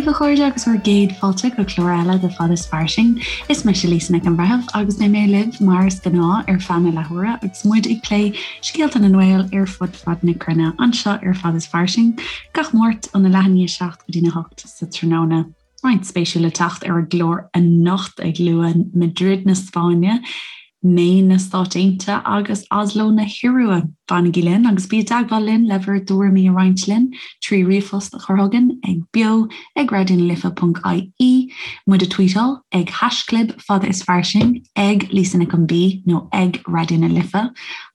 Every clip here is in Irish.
daoibh a chairde agus bhur gcéad fáilte go clár eile de Fad is Fairsing. Is mise Lisa Nic an Bhreithimh agus beidh mé libh mar is gnáth ar feadh na leathuaire agus muid ag plé scéalta na nGael ar fud fad na cruinne anseo ar Fad is Fairsing gach Máirt óna leath i ndiaidh 7 go dtína 8 sa tráthnóna. Roinnt spéisiúil le teacht ar an gclár anocht ag lua Madrid na Spáinne, Maine na Stáit Aontaithe agus Oslo na hIorua. Fanaigí linn agus bí i dteagmháil linn le bhur dtuairimí a roinnt linn trí ríomhphost a chur chugainn ag beo ag raidionalife.ie, muid a tweetáil ag haischlib fada is fairsing, ag Lisa Nic an B nó ag Raidió na Life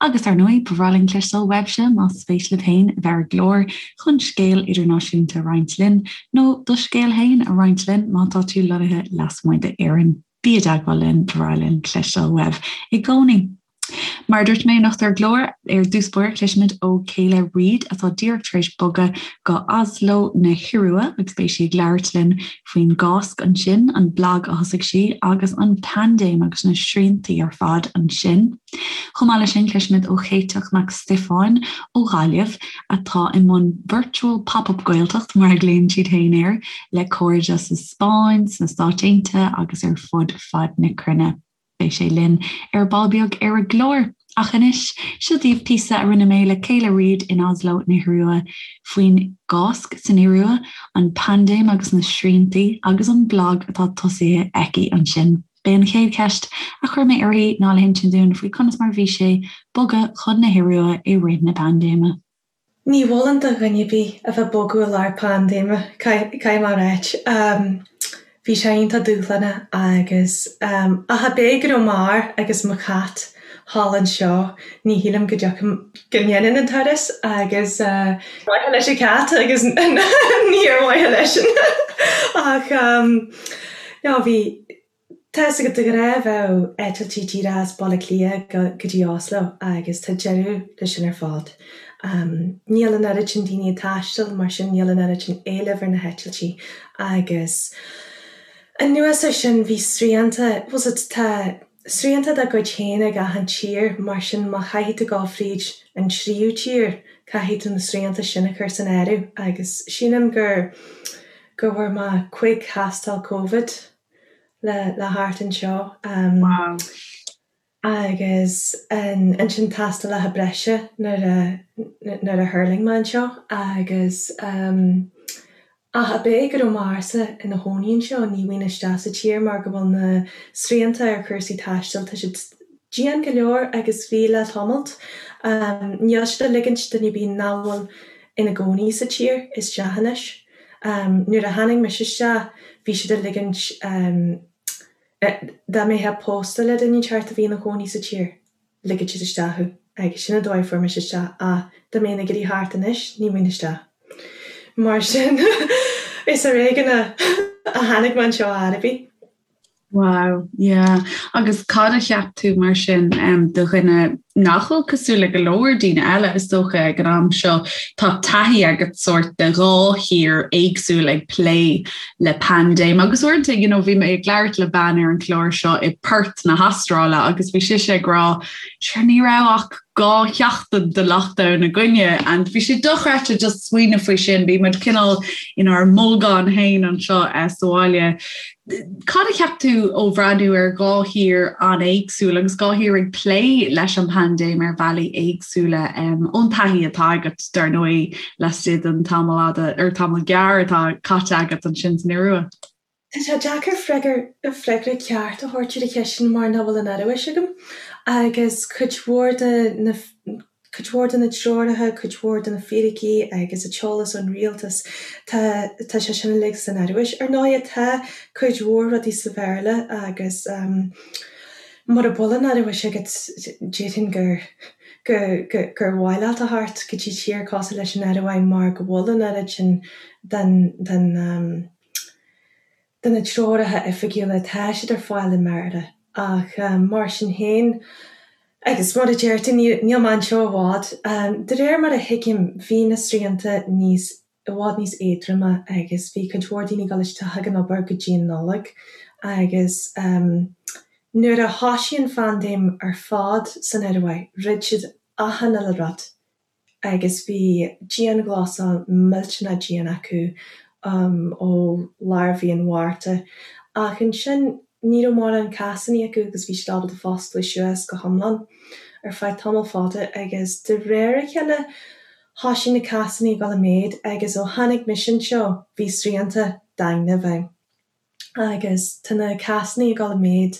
agus ar ndóigh ba bhreá linn cloisteáil uaibhse más spéis libh féin a bheith ar an gclár chun scéal idirnáisiúnta a roinnt linn nó do scéal féin a roinnt linn má tá tú lonnaithe lasmuigh d'Éirinn. Bí i dteagmháil linn, ba bhreá linn cloisteáil uaibh i gcónaí. Mar a dúirt mé anocht ar an gclár, ar dtús báire cloisfimid ó Kayla Reid atá díreach tar éis bogadh go Oslo na hIorua agus beidh sí ag labhairt linn faoin gCásc ansin, an blag a thosaigh sí agus an paindéim agus na sriantaí ar fad ansin. Chomh maith leis sin cloisfimid ó Chéiteach Mac Stiofáin ó Ghaillimh atá i mbun Virtual Pop-Up Gaeltacht mar a ghlaonn siad féin air le cairde sa Spáinn, sna Stáit Aontaithe agus ar fud fad na cruinne. Beidh sé linn ar ball beag ar an gclár. Ach anois, seo daoibh píosa a rinne mé le Kayla Reid in Oslo na hIorua faoin gCásc san Iorua, an paindéim agus na sriantaí agus an blag atá tosaithe aici ansin. B'é an chéad cheist a chuir mé uirthi ná le hinsint dúinn faoi conas mar a bhí sé bogadh chun na hIorua i rith na paindéime. Ní mholfainn do dhuine ar bith a bheith ag bogadh i lár paindéime, caithfidh mé a ráit. Bhí sé iontach dúshlánach agus ach ab é go raibh m'fhear agus mo chat thall anseo, ní shílim go dtiocfainn, go ndéanfainn an turas agus ar mhaithe leis an chat agus ní ar mhaithe leisean ach no bhí Tá 'fhios agat de ghnáth bheadh eitiltí díreach as Baile Átha Cliath go dtí Oslo agus tá deireadh leis sin ar fad. Níl an oiread sin daoine ag taisteal mar sin níl an oiread sin éilimh ar na heitiltí agus anuas ar sin bhí srianta, bhfuil 's agat tá srianta dá gcuid féin ag achan tír mar sin má chaithfidh tú dul fríd an tríú tír caithfidh tú na srianta sin a chur san áireamh agus sílim gur go bhfuair mé cuig thástáil Covid le le theacht anseo. Wow. Agus ansin tástálacha breise nuair a nuair a thuirling mé anseo agus ach ab é go raibh m'fhearsa ina chónaí anseo ní bhfaighinn isteach sa tír mar go bhfuil na srianta ar chúrsaí taistil tá siad dian go leor agus bhí le tamalt. Níl siad ag ligint duine ar bith nach bhfuil ina gcónaí sa tír isteach anois. Nuair a tháinig mise isteach bhí siad ag ligint dá mbeifeá pósta le duine inteacht a bhí ina chónaí sa tír, ligfeadh siad isteach thú agus sin an dóigh a fuair mise isteach ach dá mbeinn ag iarraidh theacht anois ní bhfaighinn isteach. Mar sin is ar éigean a tháinig mé anseo ar chor ar bith. Wow, yeah. Agus cad a cheap tú mar sin um, do dhuine nach bhfuil cosúil le go leor daoine eile is dócha ag an am seo tá taithí agat sórt de dhá thír éagsúil ag plé le paindéim agus uaireanta you know, bhí mé ag labhairt le bean ar an chlár seo i Perth na hAstráile agus bhí sise ag rá sure ní raibh ach 2 sheachtain de lockdown againne and bhí sé dochreidte just smaoineamh faoi sin, bhí muid cineál inár mbolgán féin anseo eh, sa bhaile. Cad a cheap tú ó bhreathnú ar dhá thír an-éagsúil agus dhá thír ag plé leis an bpaindéim ar bhealaí éagsúla um, ón taithí atá agat dar ndóigh laistigh den tamall fhada ar tamall gearr atá caite agat ansin san Iorua? Tá sé deacair freagra ceart a thabhairt ar an cheist sin mar nach bhfuil an Ioruais agam agus cuid mhór de na cuid mhór de na treoracha, cuid mhór de na fíricí agus an t-eolas ón rialtas, tá tá sé sin uilig san Ioruais. Ar ndóighe tá cuid mhór rudaí sa Bhéarla agus mura bhfuil an Ioruais agat déarfainn gur gur gur mhaith leat a theacht go dtí tír cosúil leis an Ioruaidh mar go bhfuil an oiread sin den den de na treoracha oifigiúla, tá siad ar fáil i mBéarla ach mar sin féin, agus mar a deir tú, níl mé anseo i bhfad, de réir mar a thuigim, bhí na srianta níos, i bhfad níos éadroime agus bhí cuid mhór daoine ag dul isteach ag an obair go dtí an Nollaig agus nuair a thoisigh an phaindéim ar fad san Ioruaidh, dhruid siad achan uile rud. agus bhí dianghlasáil millteanach dian acu. ó lár mhí an Mhárta ach ansin ní raibh mórán cásanna acu agus bhí siad ábalta foscladh suas go hiomlán ar feadh tamall fada agus de réir a chéile thoisigh na cásanna ag dul i méad agus ó tháinig mise anseo bhí srianta daingne i bhfeidhm. Agus tá na cásanna ag dul i méad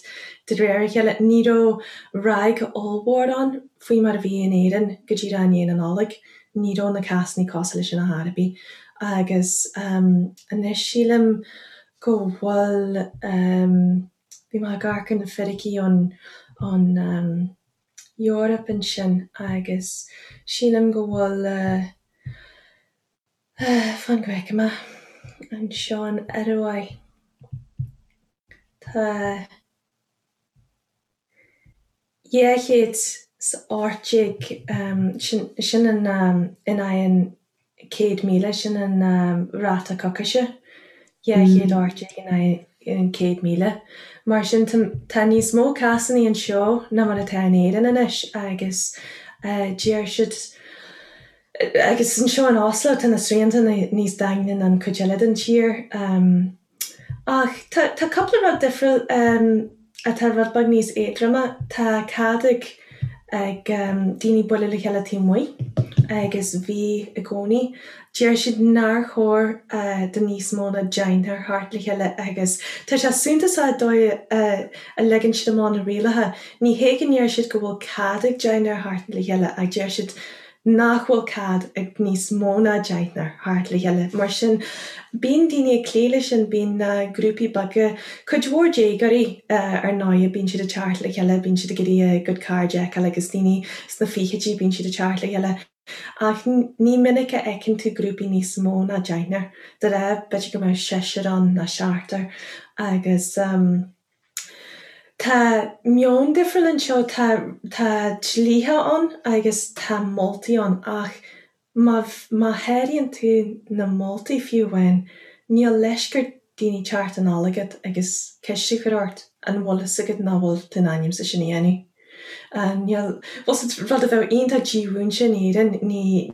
de réir a chéile. Ní raibh ráig ollmhór ann faoi mar a bhí in Éirinn go díreach i ndiaidh na Nollag. Ní raibh na cásanna cosúil leis sin ar chor ar bith. Agus anois sílim go bhfuil, bhí mé ag amharc ar na fíricí ón, ón Eoraip ansin agus sílim go bhfuil, Fan go bhfeicfidh mé. Anseo in Ioruaidh tá 218, sin in aghaidh an 100,000, sin an ráta coicíse, 218 in aghaidh an 100,000. Mar sin tá níos mó cásanna anseo ná mar atá in Éirinn anois agus deir siad, Agus anseo in Oslo tá na srianta níos daingne ná an cuid eile den tír. Ach tá tá cúpla rud difriúil atá rud beag níos éadroime. Tá cead ag ag daoine bualadh le chéile taobh amuigh agus bhí i gcónaí. Deir siad nár chóir do níos mó ná deichniúr theacht le chéile agus tá sé suntasach an dóigh a leagann siad amach na rialacha. Ní hé go ndeir siad go bhfuil cead ag deichniúr theacht le chéile ach deir siad nach bhfuil cead ag níos mó ná deichniúr theacht le chéile. Mar sin, bíonn daoine ag cloí leis sin, bíonn na grúpaí beaga, cuid mhór déagóirí ar ndóigh, bíonn siad ag teacht le chéile, bíonn siad ag iarraidh a gcuid cairde a fheiceáil agus daoine sna fichidí, bíonn siad ag teacht le chéile. Ach ní minic a fheiceann tú grúpaí níos mó ná deichniúr. De ghnáth, b'fhéidir go mbeadh seisear ann nó seachtar agus. Tá meon difriúil anseo, tá tá dlíthe ann agus tá moltaí ann ach má má sháraíonn tú na moltaí fiú amháin, níl leisc ar daoine teacht anall chugat agus ceist a chur ort an bhfuil fhios agat nach bhfuil tú in ainm is sin a dhéanamh. Níl, bhfuil fhios agat, rud a bheadh iontach dímhúinte in Éirinn, ní.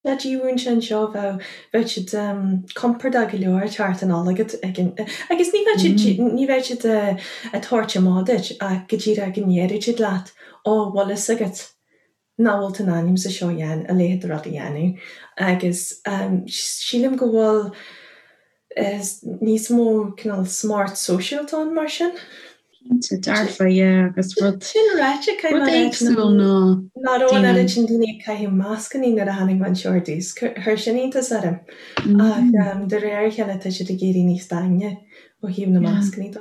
Tá dímhúinte anseo, bheadh, bheadh siad compordach go leor ag teacht anall chugat ag an, agus ní bheadh siad, ní bheadh siad ag tabhairt amach duit ach go díreach go ndéarfadh siad leat, ó, bhfuil fhios agat nach bhfuil tú in ainm is é seo a dhéanamh, a leithéid de rud a dhéanamh. Agus sílim go bhfuil níos mó cineál smacht sóisialta ann mar sin. Cinnte, dearfa, yeah, agus rud Sin ráite, rud éagsúil ná Nach raibh an oiread sin daoine ag caitheamh mascannaí nuair a tháinig mé anseo ar dtús. Chuir sin iontas orm. Ach de réir a chéile tá siad ag éirí níos daingne ó thaobh na mascannaí de.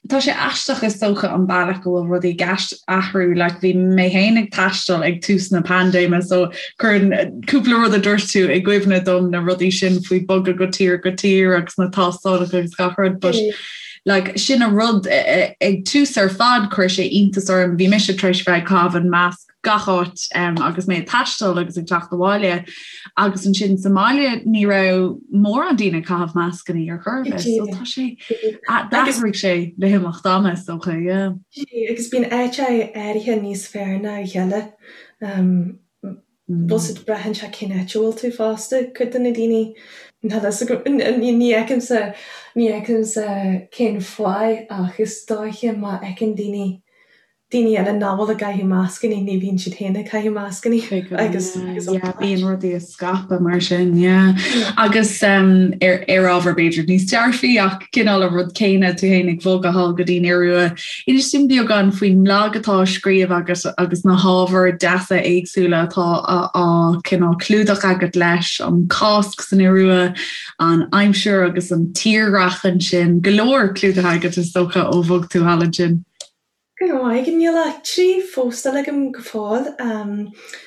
Tá sé aisteach is dócha an bealach go bhfuil rudaí ag athrú, like bhí mé féin ag taisteal ag tús na paindéime so cuireann cúpla rud a dúirt tú i gcuimhne dom na rudaí sin faoi bogadh go tír go tír agus na tástálacha agus gach rud but like sin an rud ag tús ar fad chuir sé iontas orm bhí mise tar éis bheith ag caitheamh an masc gach áit um, agus mé ag taisteal agus ag teacht abhaile agus ansin sa mbaile ní raibh mórán daoine ag caitheamh mascannaí ar chor ar bith so tá sé d'athraigh sé le himeacht ama is dócha yeah. Agus bíonn áit áirithe níos fearr ná a chéile. Um, bhfuil fhios agat braitheann sé cén áit a bhfuil tú fosta, cuid de na daoine ní fheicimse ní fheicimse cén fáth ach is dóiche má fheiceann daoine daoine eile nach bhfuil ag caitheamh mascannaí, ní bhíonn siad féin ag caitheamh mascannaí agus yeah, bíonn rudaí ag scaipeadh mar sin, yeah. Agus um, ar, ar ábhar b'fhéidir níos dearfaí ach cineál an rud céanna tú féin ag bogadh thall go dtí an Iorua. Inis dúinn beagán faoin mblag atá á scríobh agat agus na hábhair deasa éagsúla atá á cineál clúdach agat leis, an Cásc san Iorua, an aimsir agus an tírdhreach ansin, go leor clúdaithe agat is dócha ó bhog tú thall ansin. Go raibh maith agat. Níl ach 3 phóstáil agam go fóill.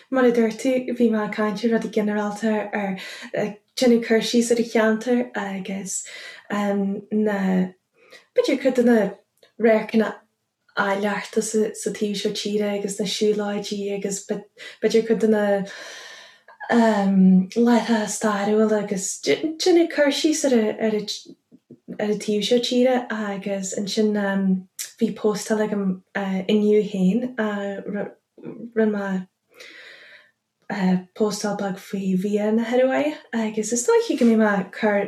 Mar a dúirt tú, bhí mé ag caint ar rudaí ginearálta, ar ag déanamh cur síos ar an cheantar agus na, b'fhéidir cuid de na radharcanna áilleachta sa taobh seo tíre agus na siúlóidí agus b'fhéidir cuid de na láithreacha stairiúla agus déanamh cur síos ar ar ar an taobh seo tíre agus ansin bhí póstáil agam inniu féin, rinne mé. póstáil beag faoi bhia na hIoruaidhe agus is dóichí go mbeidh mé ag cur,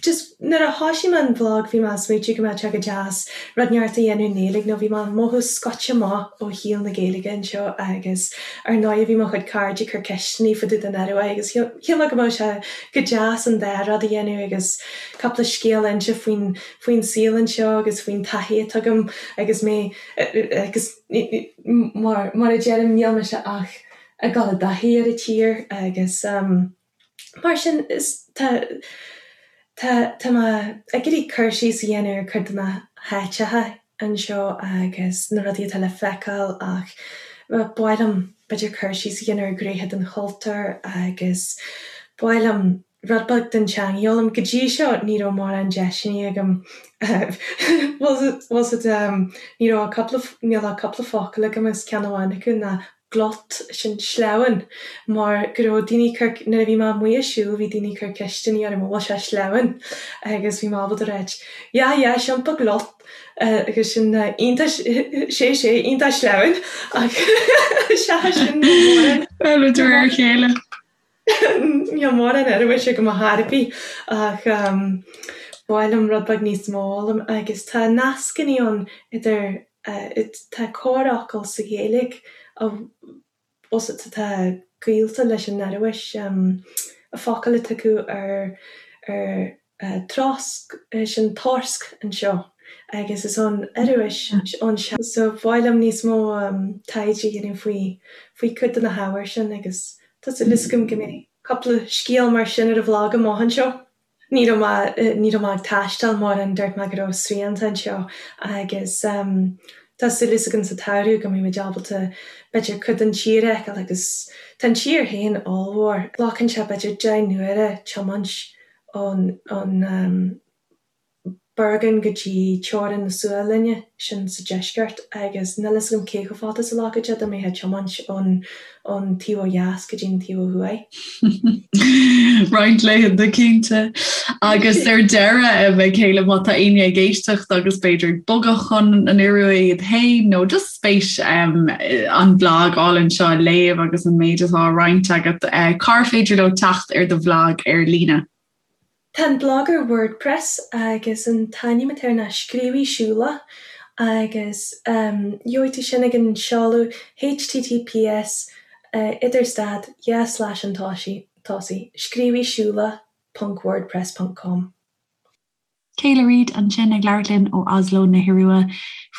just nuair a thoisigh mé an bhlag bhí mé ag smaoitiú go mbeadh sé go deas rud inteacht a dhéanamh i nGaeilge nó bhí mé ag mothú scoite amach ó shaol na Gaeilge anseo agus ar ndóigh bhí mo chuid cairde ag cur ceisteanna fá dtaobh den Ioruaidh agus shíl mé go mbeadh sé go deas an dá rud a dhéanamh agus cúpla scéal a inse faoin faoin saol anseo agus faoin taithí atá agam agus mé agus mar mar a deirim níl mise ach ag dul i dtaithí ar an tír agus mar sin is tá tá tá mé ag iarraidh cur síos a dhéanamh ar cuid de na háiteacha anseo agus na rudaí atá le feiceáil ach ba mhaith liom b'fhéidir cur síos a dhéanamh ar ghnéithe den chultúr agus ba mhaith liom rud beag den teanga a fhoghlaim. Go dtí seo ní raibh mórán deiseanna agam bhfuil 's a'd ní raibh ach cúpla níl ach cúpla focal agam agus ceann amháin acu ná glatt, sin sleamhain, mar go raibh daoine ag cur nuair a bhí mé amuigh ag siúl bhí daoine ag cur ceisteanna orm an bhfuil sé sleamhain agus bhí mé ábalta ráit ja ja kjempe glatt agus sin iontach sé sé iontach sleamhain ach seachas sin níl mórán. Bhuel, de réir a chéile. Níl mórán Ioruaise agam ar chor ar bith ach ba mhaith liom rud beag níos mó a fhoghlaim agus tá nascanna ann idir, tá corrfhocal sa Ghaeilge atá gaolta leis an Ioruais, focal atá acu ar ar trosc, sin torsk anseo agus is ón Ioruais ón so ba mhaith liom níos mó taighde a dhéanamh faoi faoi cuid de na hábhair sin agus tá súil agam go mbeidh cúpla scéal mar sin ar an bhlag amach anseo. Ní raibh mé ní raibh mé ag taisteal mórán dúirt mé go raibh srianta anseo agus tá súil agam sa tsamhradh go mbeidh muid ábalta b'fhéidir cuid den tír a fheiceáil agus tá an tír féin ollmhór. Glacann sé b'fhéidir 10 n-uaire tiomáint ón ón Bergen go dtí teorainn na Sualainne, sin sa deisceart, agus níl fhios agam cé chomh fada is a ghlacfadh sé dá mbeifeá ag tiomáint ón ón taobh ó dheas go dtí an taobh ó thuaidh. Roinnt laethanta cinnte. Agus ar deireadh, a Kayla, má tá éinne ag éisteacht agus b'fhéidir ag bogadh chun an Iorua iad féin nó just spéis an bhlag álainn seo a léamh agus an méid atá á roinnt agat, cár féidir leo teacht ar do bhlag ar líne? Tá an blag ar WordPress agus an t-ainm atá air ná Scríobhaí Siúlach agus gheobhaidh tú sin ag an seoladh https idir stad dhá slais an tosaigh, scríobhaí ponc wordpress ponc com. Kayla Reid ansin ag labhairt linn ó Oslo na hIorua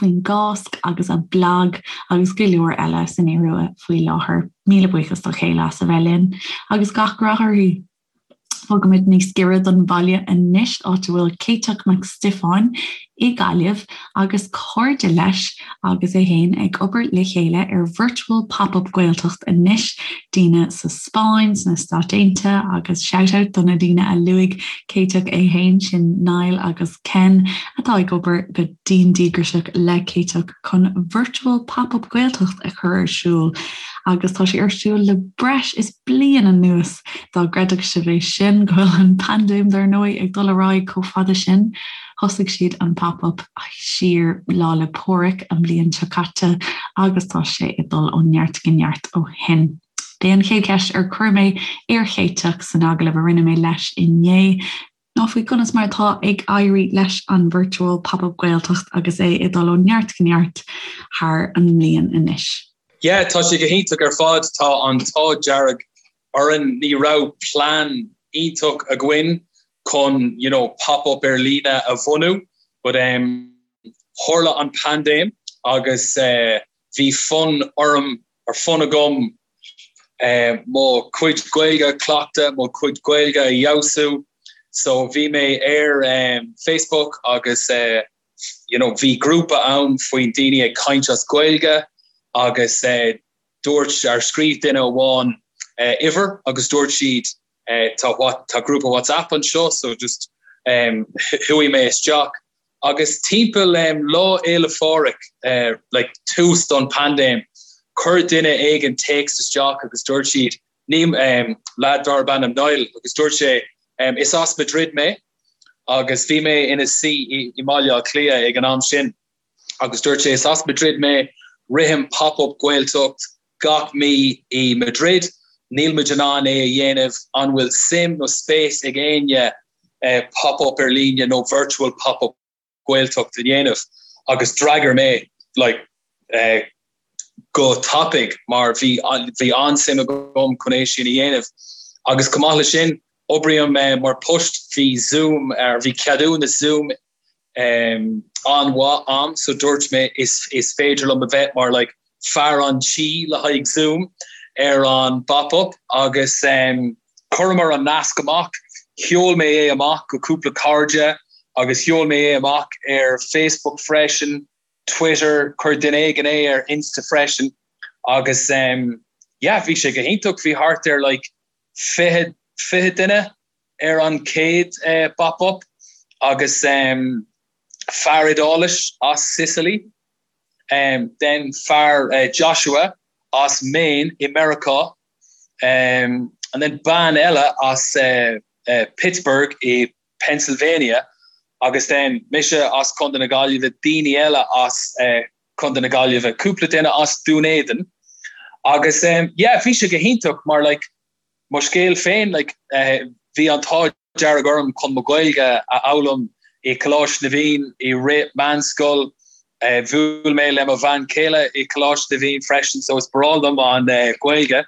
faoin gCáisc agus a blag agus go leor eile san Iorua faoi láthair. Míle buíochas do Kayla as a bheith linn agus gach rath uirthi. Bogaimid níos giorra don bhaile anois, áit a bhfuil Céiteach Mac Stiofáin i Gaillimh agus cairde leis agus é féin ag obair le chéile ar Virtual Pop-Up Gaeltacht anois, daoine sa Spáinn, sna Stáit Aontaithe agus shout-out do na daoine a luaigh Céiteach é féin, sin Niall agus Ken atá ag obair go dian díograiseach le Céiteach chun Virtual Pop-Up Gaeltacht a chur ar siúl agus tá sé ar siúl le breis is bliain anuas. Dá gcreidfeadh sibh é sin, go bhfuil an paindéim dar ndóigh ag dul ar aghaidh chomh fada sin. Thosaigh siad an Pop-Up siar Lá 'le Pádraig an bhliain seo caite agus tá sé ag dul ó neart go neart ó shin. B'é an chéad cheist ar chuir mé ar Chéiteach san agallamh a rinne mé leis inné ná faoi conas mar atá ag éirí leis an Virtual Pop-Up Gaeltacht agus é ag dul ó neart go neart thar an mbliain anois. Yeah, tá sé go hiontach ar fad. Tá an t-ádh dearg orainn. Ní raibh plean iontach againn chun you know, pop-up ar líne a bhunú, but um, tharla an paindéim agus uh, bhí fonn orm or fonn agam uh, mo chuid Gaeilge a chleachtadh, mo chuid Gaeilge a fheabhsú. So bhí mé ar um, Facebook agus uh, you know, bhí grúpa ann faoin daoine ag caint as Gaeilge agus uh, dúirt ar scríobh duine amháin uh, uimhir agus dúirt siad uh, tá, what, tá grúpa WhatsApp anseo so just um, chuaigh mé isteach agus timpeall um, Lá Fhéile Phádraig uh, like, tús don paindéim chuir duine éigin téacs isteach agus dúirt siad ní um, lad darb ainm Niall agus dúirt sé um, is as Madrid mé agus bhí mé ina suí i, i mBaile Átha Cliath ag an am sin agus dúirt sé is as Madrid mé rithim pop-up Gaeltacht gach mí i Madrid. Níl muid in ann é a dhéanamh, an bhfuil suim nó spéis ag éinne pop-up ar líne nó virtual pop-up Gaeltacht a dhéanamh? Agus d'fhreagair mé like go tapaidh mar bhí bhí an-suim agam chun é sin a dhéanamh. Agus chomh maith le sin, oibrím mar post, bhí Zoom, bhí ceadúnas Zoom an-mhaith a'm so dúirt mé is is féidir liom a bheith mar like fear an tí le haghaidh Zoom ar an bpop-up agus chuireamar an nasc amach, sheol mé é amach go cúpla cairde agus sheol mé é amach ar Facebook freisin, Twitter, chuir duine éigin é ar Insta freisin agus yeah bhí sé go hiontach, bhí thart ar like 20 20 duine ar an chéad bpop-up agus fear Iodáilis as Sicily, then fear Joshua as Maine i Meiriceá and then bean eile as Pittsburgh i Pennsylvania agus then mise as Contae na Gaillimhe, daoine eile as Contae na Gaillimhe, cúpla duine as Dún Éideann agus yeah bhí sé go hiontach mar like Mo scéal féin, like, bhí an t-ádh dearg orm chun mo Ghaeilge a fhoghlaim i Coláiste na bhFiann i rith meánscoil. Bhuail mé le mo bhean chéile i Coláiste na bhFiann freisin so is breá liom an Ghaeilge.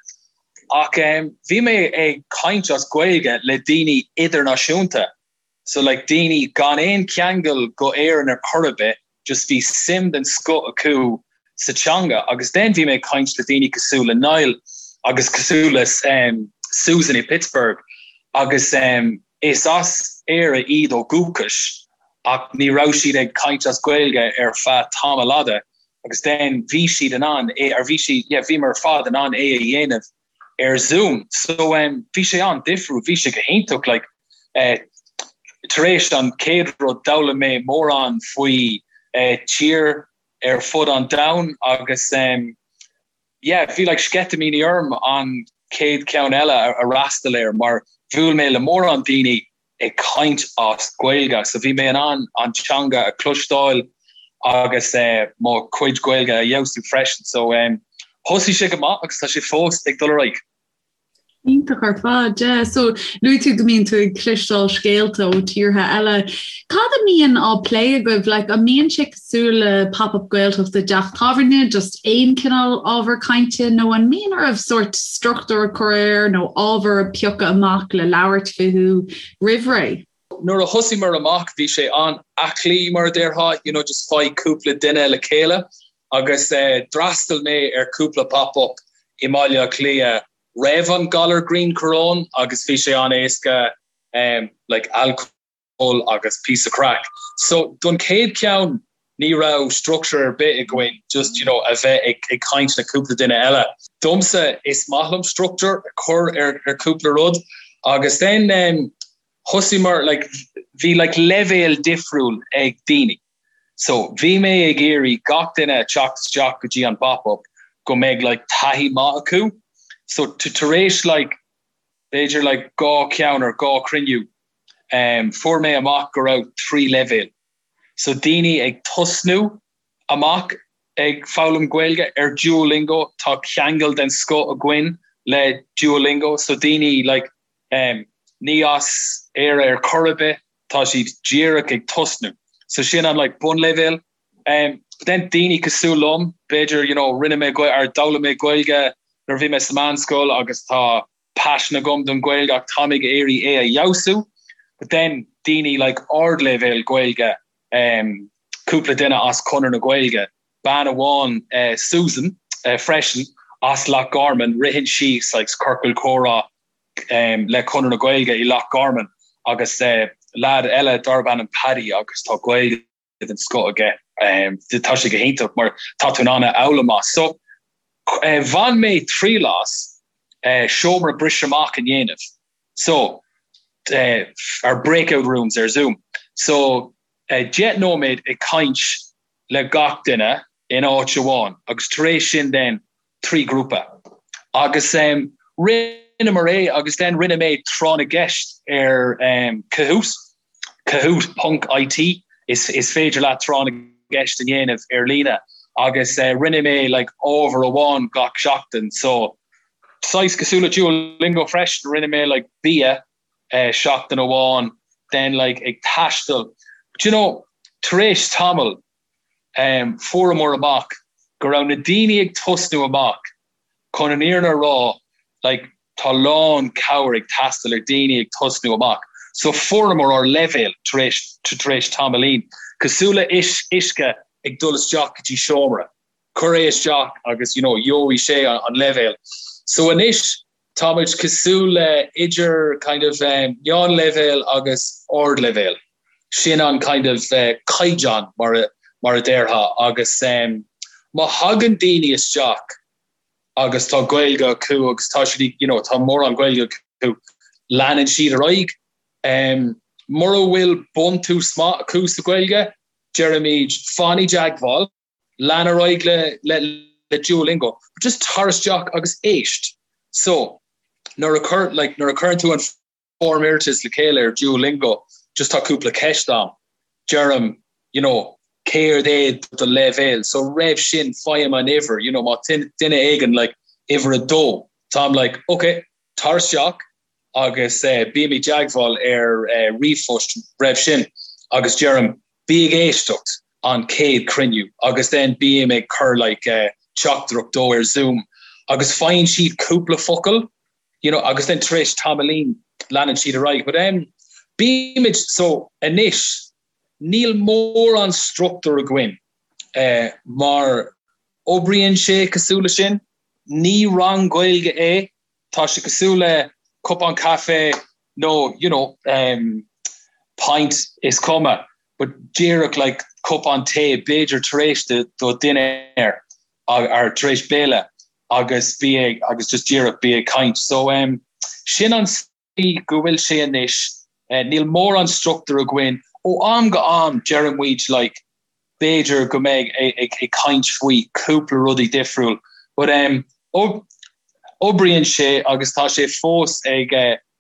Ach bhí mé ag caint as Gaeilge le daoine idirnáisiúnta. So like daoine gan aon cheangal go Éirinn ar chor ar bith, just bhí suim den scoth acu sa teanga agus then bhí mé ag caint le daoine cosúil le Niall agus cosúil le um, Susan i Pittsburgh agus um, is as Éire iad ó dhúchas ach ní raibh siad ag caint as Gaeilge ar feadh tamall fhada agus then bhí siad in ann é ar bhí siad yeah, bhíomar ar fad in ann é a dhéanamh ar Zoom. So um, bhí sé an-difriúil, bhí sé go hiontach like, eh, tar éis an chéad rud d'fhoghlaim mé mórán faoi eh, tír ar fud an domhain agus um, yeah, bhí like, sceitimíní orm an chéad cheann eile a, a fhreastal air mar bhuail mé le mórán daoine ag caint as Gaeilge so bhí mé in ann an teanga a chloisteáil agus mo chuid Gaeilge a fheabhsú freisin so thosaigh sé go maith agus tá sé fós ag dul ar aghaidh. Iontach ar fad, yeah. So luaigh tú go mbíonn tú ag cloisteáil scéalta ó tíortha eile. Cad a mbíonn á plé agaibh? Like, an mbíonn sé cosúil le Pop-Up Gaeltacht i dteach tábhairne, just aon cineál ábhar cainte, nó an mbíonn oraibh sórt struchtúr a chur air nó ábhar a phiocadh amach le labhairt fúthu roimh ré? Nuair a thosaíomar amach bhí sé an-aclaí mar a déarfá, you know, just faigh cúpla duine le chéile agus d'fhreastail mé ar cúpla pop-up i mBaile Átha Cliath roimh an galar grianchoróin agus bhí sé an-éasca like alcól ól agus píosa craic. So don chéad cheann ní raibh structure ar bith againn just you know a bheith ag ag caint le cúpla duine eile. Domsa is maith liom structure a chur ar ar cúpla rud agus then um, thosaíomar like bhí like leibhéal difriúil ag daoine. So bhí mé ag iarraidh gach duine a teacht isteach go dtí an pop-up go mbeidh like taithí maith acu. So tar éis like b'fhéidir like 2 cheann or 2 chruinniú fuair mé amach go raibh 3 leibhéal. So daoine ag tosnú amach ag foghlaim Gaeilge ar Duolingo, tá ceangal den scoth againn le Duolingo, so daoine like ní as Éire ar chor ar bith, tá siad díreach ag tosnú. So sin an like bunleibhéal. But then daoine cosúil liom, b'fhéidir you know rinne mé or d'fhoghlaim mé Gaeilge nuair a bhí mé sa meánscoil agus tá paisean agam don Ghaeilge ach táim ag iarraidh é a fheabhsú. But then daoine like ardleibhéal Gaeilge, cúpla duine as Conradh na Gaeilge, bean amháin Susan freisin as Loch Garman, ritheann sí like ciorcal comhrá le Conradh na Gaeilge i Loch Garman agus leaid eile darb ainm Paddy agus tá Gaeilge den scoth aige. Tá sé go hiontach mar tá tú in ann a fhoghlaim as. So bhain mé triail as seomra briseadh amach a dhéanamh. So ar breakout rooms ar Zoom. So 10 nóiméad ag caint le gach duine in áit amháin agus tar éis sin then 3 grúpa. Agus rinneamar é agus then rinne mé tráth na gceist ar Kahoot, kahoot ponc IT, is is féidir leat tráth na gceist a dhéanamh ar líne agus rinne mé like ábhar amháin gach seachtain so. Saghas cosúil le Duolingo freisin, rinne mé like bia seachtain amháin, then like ag taisteal. But you know, tar éis tamaill, fuaireamar amach go raibh na daoine ag tosnú amach, chun an fhírinne a rá, like tá lán cabhair ag teastáil ar daoine ag tosnú amach. So fuaireamar ár leibhéal tar éis tar éis tamaillín, cosúil le uisce ag dul isteach go dtí seomra. Cuir é isteach agus you know gheobhaidh sé an leibhéal. So anois táimid cosúil le idir kind of meánleibhéal agus ardleibhéal. Sin an kind of caighdeán mar a mar a déarfá agus má thagann daoine isteach agus tá Gaeilge acu agus tá siad you know tá mórán Gaeilge acu, leanann siad ar aghaidh. Mura bhfuil buntús maith acu sa Ghaeilge, deirimid fan i dteagmháil. Lean ar aghaidh le le le Duolingo, but just tar isteach agus éist. So, nuair a chur like nuair a chuireann tú an form iarratais le chéile ar Duolingo, just tá cúpla ceist ann. Deirim, you know, céard é do leibhéal? So roimh sin faighim an uimhir, you know, má tá duine éigin like uimhir a dó, táim like, ok, tar isteach, agus bím i dteagmháil ar ríomhphost roimh sin agus deirim bí ag éisteacht an chéad chruinniú agus then bím ag cur like teachtaireacht dó ar Zoom agus faigheann siad cúpla focal you know agus then tar éis tamaillín leanann siad ar aghaidh but em bímid so anois níl mórán struchtúr againn eh mar oibríonn sé cosúil le sin ní rang Gaeilge é Tá sé cosúil le cupán caife nó you know pint is cuma but díreach like cupán tae b'fhéidir tar éis do do dinnéar or tar éis béile agus bí ag agus just díreach bí ag caint. So um sin an tslí go bhfuil sé anois. Níl mórán struchtúr againn. Ó am go am deireann muid like b'fhéidir go mbeidh ag caint faoi cúpla rudaí difriúil but um oibríonn sé agus tá sé fós ag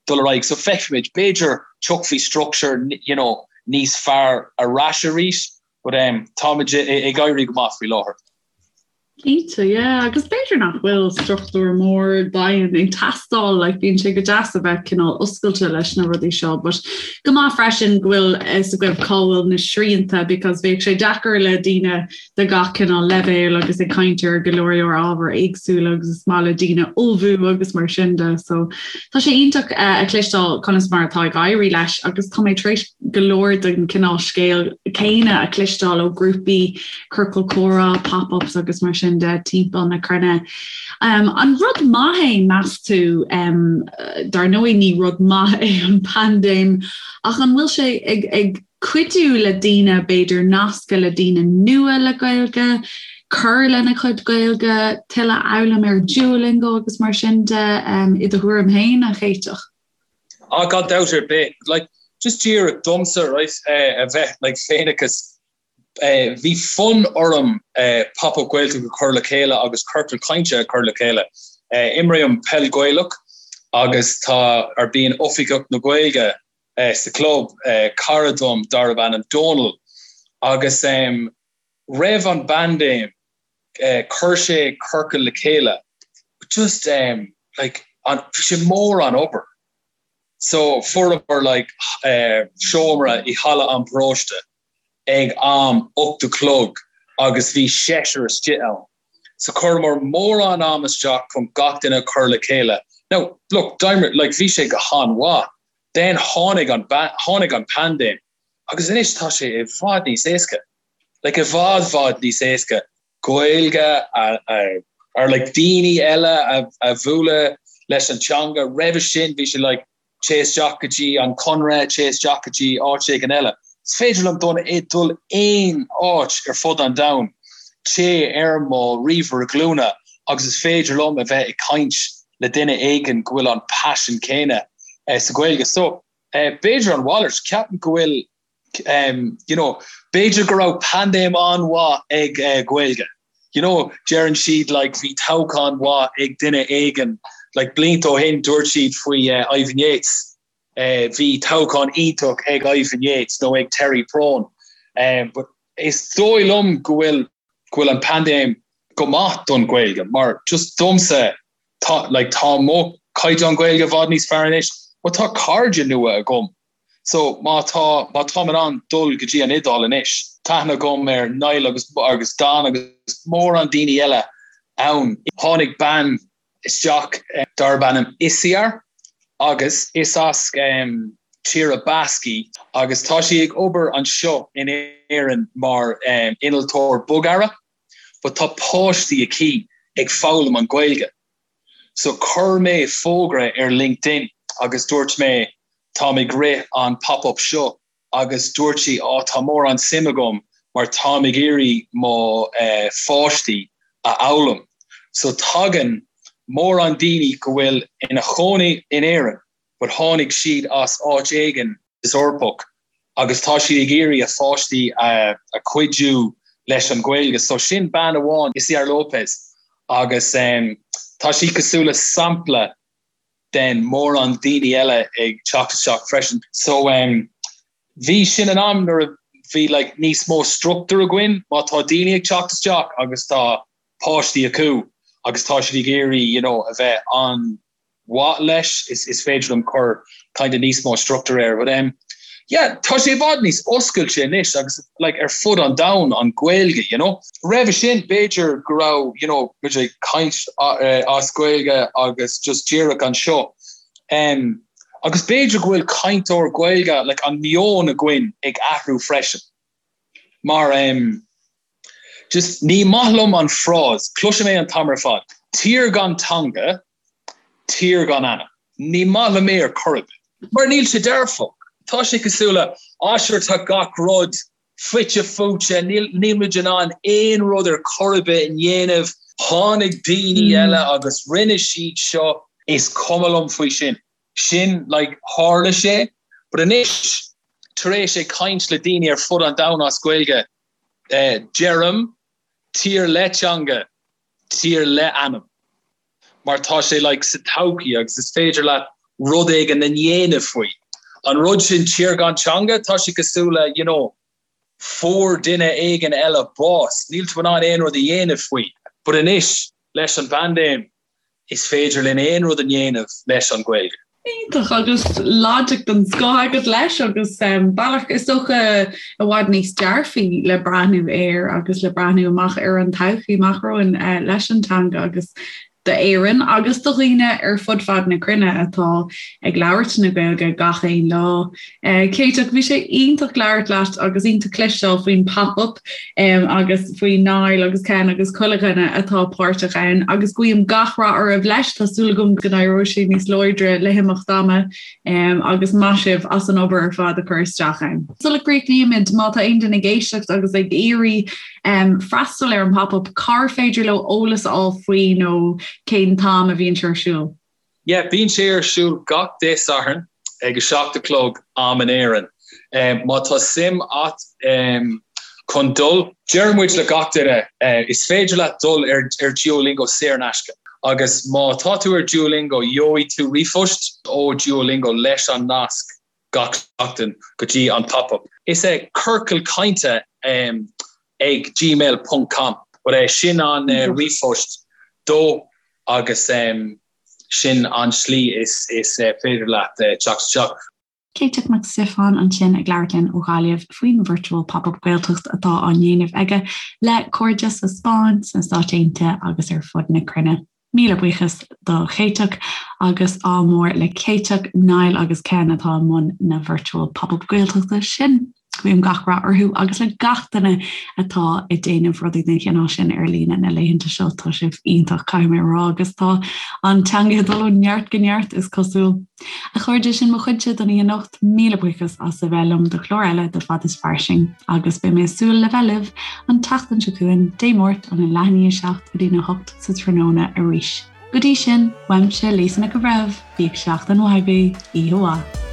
dul ar aghaidh so feicfimid, b'fhéidir tiocfaidh structure you know níos fearr ar ais arís but um táimid ag éirí go maith faoi láthair. Cinnte, yeah, agus b'fhéidir nach bhfuil struchtúr mór daingean ag teastáil, like, bíonn sé go deas a bheith cineál oscailte leis na rudaí seo, but go maith freisin go bhfuil fhios agaibh cá bhfuil na srianta because bheadh sé deacair le daoine de gach cineál leibhéal agus ag caint ar go leor leor ábhar éagsúla agus is maith le daoine ullmhú agus mar sin de, so tá sé iontach eh, a chloisteáil conas mar atá ag éirí leis agus tá mé tar éis go leor den cineál scéal céanna a chloisteáil ó grúpaí ciorcal comhrá, pop-ups agus mar sin de timpeall na cruinne. Um, an rud maith é meas tú, um, dar ndóigh ní rud maith é an paindéim, ach an bhfuil sé ag, ag cuidiú le daoine b'fhéidir nascadh le daoine nua le Gaeilge, cur lena chuid Gaeilge, tuilleadh a fhoghlaim ar Duolingo agus mar sin de um, i do thuairim féin a Chéiteach? Ah, gan dabht ar bith. Like, just díreach domsa, right, eh, a bheith like, féineachas Bhí fonn orm Pop Up Gaeltacht a chur le chéile agus ciorcal cainte a chur le chéile. Imrím peil Ghaelach agus tá ar bíonn Oifigeach na Gaeilge sa chlub, cara dom darb ainm Dónal, agus roimh an bpaindéim chuir sé ciorcal le chéile just like bhí sé mórán obair. So fuaireamar like seomra i halla an paróiste ag am 8 a chlog agus bhí seisear istigh ann. So chuireamar mórán am isteach chun gach duine a chur le chéile. Now, look, d'imir, like, bhí sé go han-mhaith. Then tháinig an, tháinig an paindéim agus anois tá sé i bhfad níos éasca. Like, i bhfad, bhfad níos éasca Gaeilge a, a, or like daoine eile a, a bhualadh leis an teanga. Roimhe sin bhí sé like, téigh isteach go dtí an Conradh, téigh isteach go dtí áit éigin eile. Is féidir liom dul dul aon áit ar fud an domhain, téigh ar mo ríomhaire glúine agus is féidir liom a bheith ag caint le duine éigin go bhfuil an paisean céanna sa Ghaeilge. So, b'fhéidir an mhalairt, ceapaim go bhfuil you know, b'fhéidir go raibh paindéim an-mhaith ag uh, Gaeilge. You know, deireann siad like, bhí toghchán mhaith ag duine éigin, like, blianta ó shin dúirt siad faoi uh, Ivan Yates. Uh, bhí toghchán iontach ag Ivan Yates nó ag Terry Prone. Um, but is dóigh liom go bhfuil go bhfuil an paindéim go maith don Ghaeilge, mar just domsa. Tá like tá mo caighdeán Gaeilge i bhfad níos fearr anois but tá cairde nua agam so má tá má táim in ann dul go dtí an Iodáil anois tá aithne agam ar Niall agus agus Don agus mórán daoine eile ann. Tháinig bean isteach darb ainm Isiar agus is as Tír Basque í agus tá sí ag obair anseo in Éirinn mar innealtóir bogearra but tá páistí aici ag foghlaim an Ghaeilge. So chuir mé fógra ar LinkedIn agus dúirt mé táim ag rith an pop-up seo agus dúirt sí á tá mórán suim agam mar táim ag iarraidh mo pháistí a fhoghlaim. So tagann mórán daoine go bhfuil ina chónaí in Éirinn but tháinig siad as áit éigin Eorpach agus tá siad ag iarraidh a pháistí a chuidiú leis an Ghaeilge. So sin bean amháin, Isiar Lopez, agus tá sí cosúil le sampla den mórán daoine eile ag teacht isteach freisin. So bhí sin an am nuair a bhí like níos mó struchtúr againn má tá daoine ag teacht isteach agus tá páistí acu agus tá siad ag iarraidh you know a bheith an mhaith leis is is féidir liom cur kind of níos mó struchtúr air but um yeah tá sé i bhfad níos oscailte anois agus like ar fud an domhain an Ghaeilge you know. Roimhe sin b'fhéidir go raibh you know muid ag caint as Gaeilge agus just díreach anseo um agus b'fhéidir go bhfuil cainteoir Gaeilge like an meon againn ag athrú freisin mar um just ní maith liom an frása cloisim é an t-am ar fad tír gan teanga tír gan anam. Ní maith liom é ar chor ar bith. Mar níl sé dearfach. Tá sé cosúil le, ah sure tá gach rud fite fuaite, níl níl muid in ann aon rud ar chor ar bith a dhéanamh, tháinig daoine eile agus rinne siad seo. Is cuma liom faoi sin. Sin like tharla sé. But anois tar éis ag caint le daoine ar fud an domhain as Gaeilge, deirim, tír le teanga, tír le anam. Mar tá sé like sa todhchaí agus is féidir leat rud éigin a dhéanamh faoi. An rud sin tír gan teanga, tá sé cosúil le you know fuair duine éigin eile bás, níl tú in ann aon rud a dhéanamh faoi. But anois leis an bpaindéim is féidir linn aon rud a dhéanamh leis an Ghaeilge. Iontach agus logic den scoth agat leis agus bealach is dócha i bhfad níos dearfaí le breathnú air agus le breathnú amach ar an todhchaí amach romhainn leis an teanga agus d'Éirinn agus do dhaoine ar fud fad na cruinne atá ag labhairt na Gaeilge gach aon lá. Céiteach, bhí sé iontach labhairt leat agus iontach cloisteáil faoin pop-up agus faoi Niall agus Ken agus chuile dhuine atá páirteach ann agus guím gach rath oraibh leis. Tá súil agam go n-éireoidh sé níos láidre le himeacht ama agus maith sibh as an obair ar fad a chur isteach ann. Sula gcríochnaímid, má tá aon duine ag éisteacht agus ag iarraidh freastal ar an pop-up, cár féidir leo eolas a fháil faoi nó cén t-am a bhíonn sé ar siúl? Yeah, bíonn sé ar siúl gach Dé Sathairn ag 7 a chlog am in Éirinn. Má tá suim a't chun dul, deir muid le gach duine, is féidir leat dul ar ar Duolingo saor in aisce agus má tá tú ar Duolingo gheobhaidh tú ríomhphost ó Duolingo leis an nasc gach seachtain go dtí an pop-up. Is é ciorcal cainte ag gmail ponc com but é sin an ríomhphost dó agus sin an slí is is féidir leat teacht isteach. Céiteach Mac Stiofáin ansin ag labhairt linn ó Ghaillimh faoin Virtual Pop-Up Gaeltacht atá á ndéanamh aige le cairde sa Spáinn, sna Stáit Aontaithe agus ar fud na cruinne. Míle buíochas do Chéiteach agus ádh mór le Céiteach, Niall agus Ken atá i mbun na Virtual Pop-Up Gaeltachta sin. Guím gach rath orthu agus le gach duine atá ag déanamh rudaí den chineál sin ar líne na laethanta seo. Tá sibh iontach, caithfidh mé a rá, agus tá an teanga ag dul ó neart go neart, is cosúil. A chairde, sin mo chuidse don oíche anocht. Míle buíochas as a bheith liom do chlár eile de Fad is Fairsing agus beidh mé ag súil le bheith libh an tseachtain seo chugainn, Dé Máirt, óna leath i ndiaidh a 7 go dtína 8 sa tráthnóna arís. Go dtí sin, uaimse Lisa Nic an Bhreithimh, bíodh seachtain mhaith agaibh, oíche mhaith.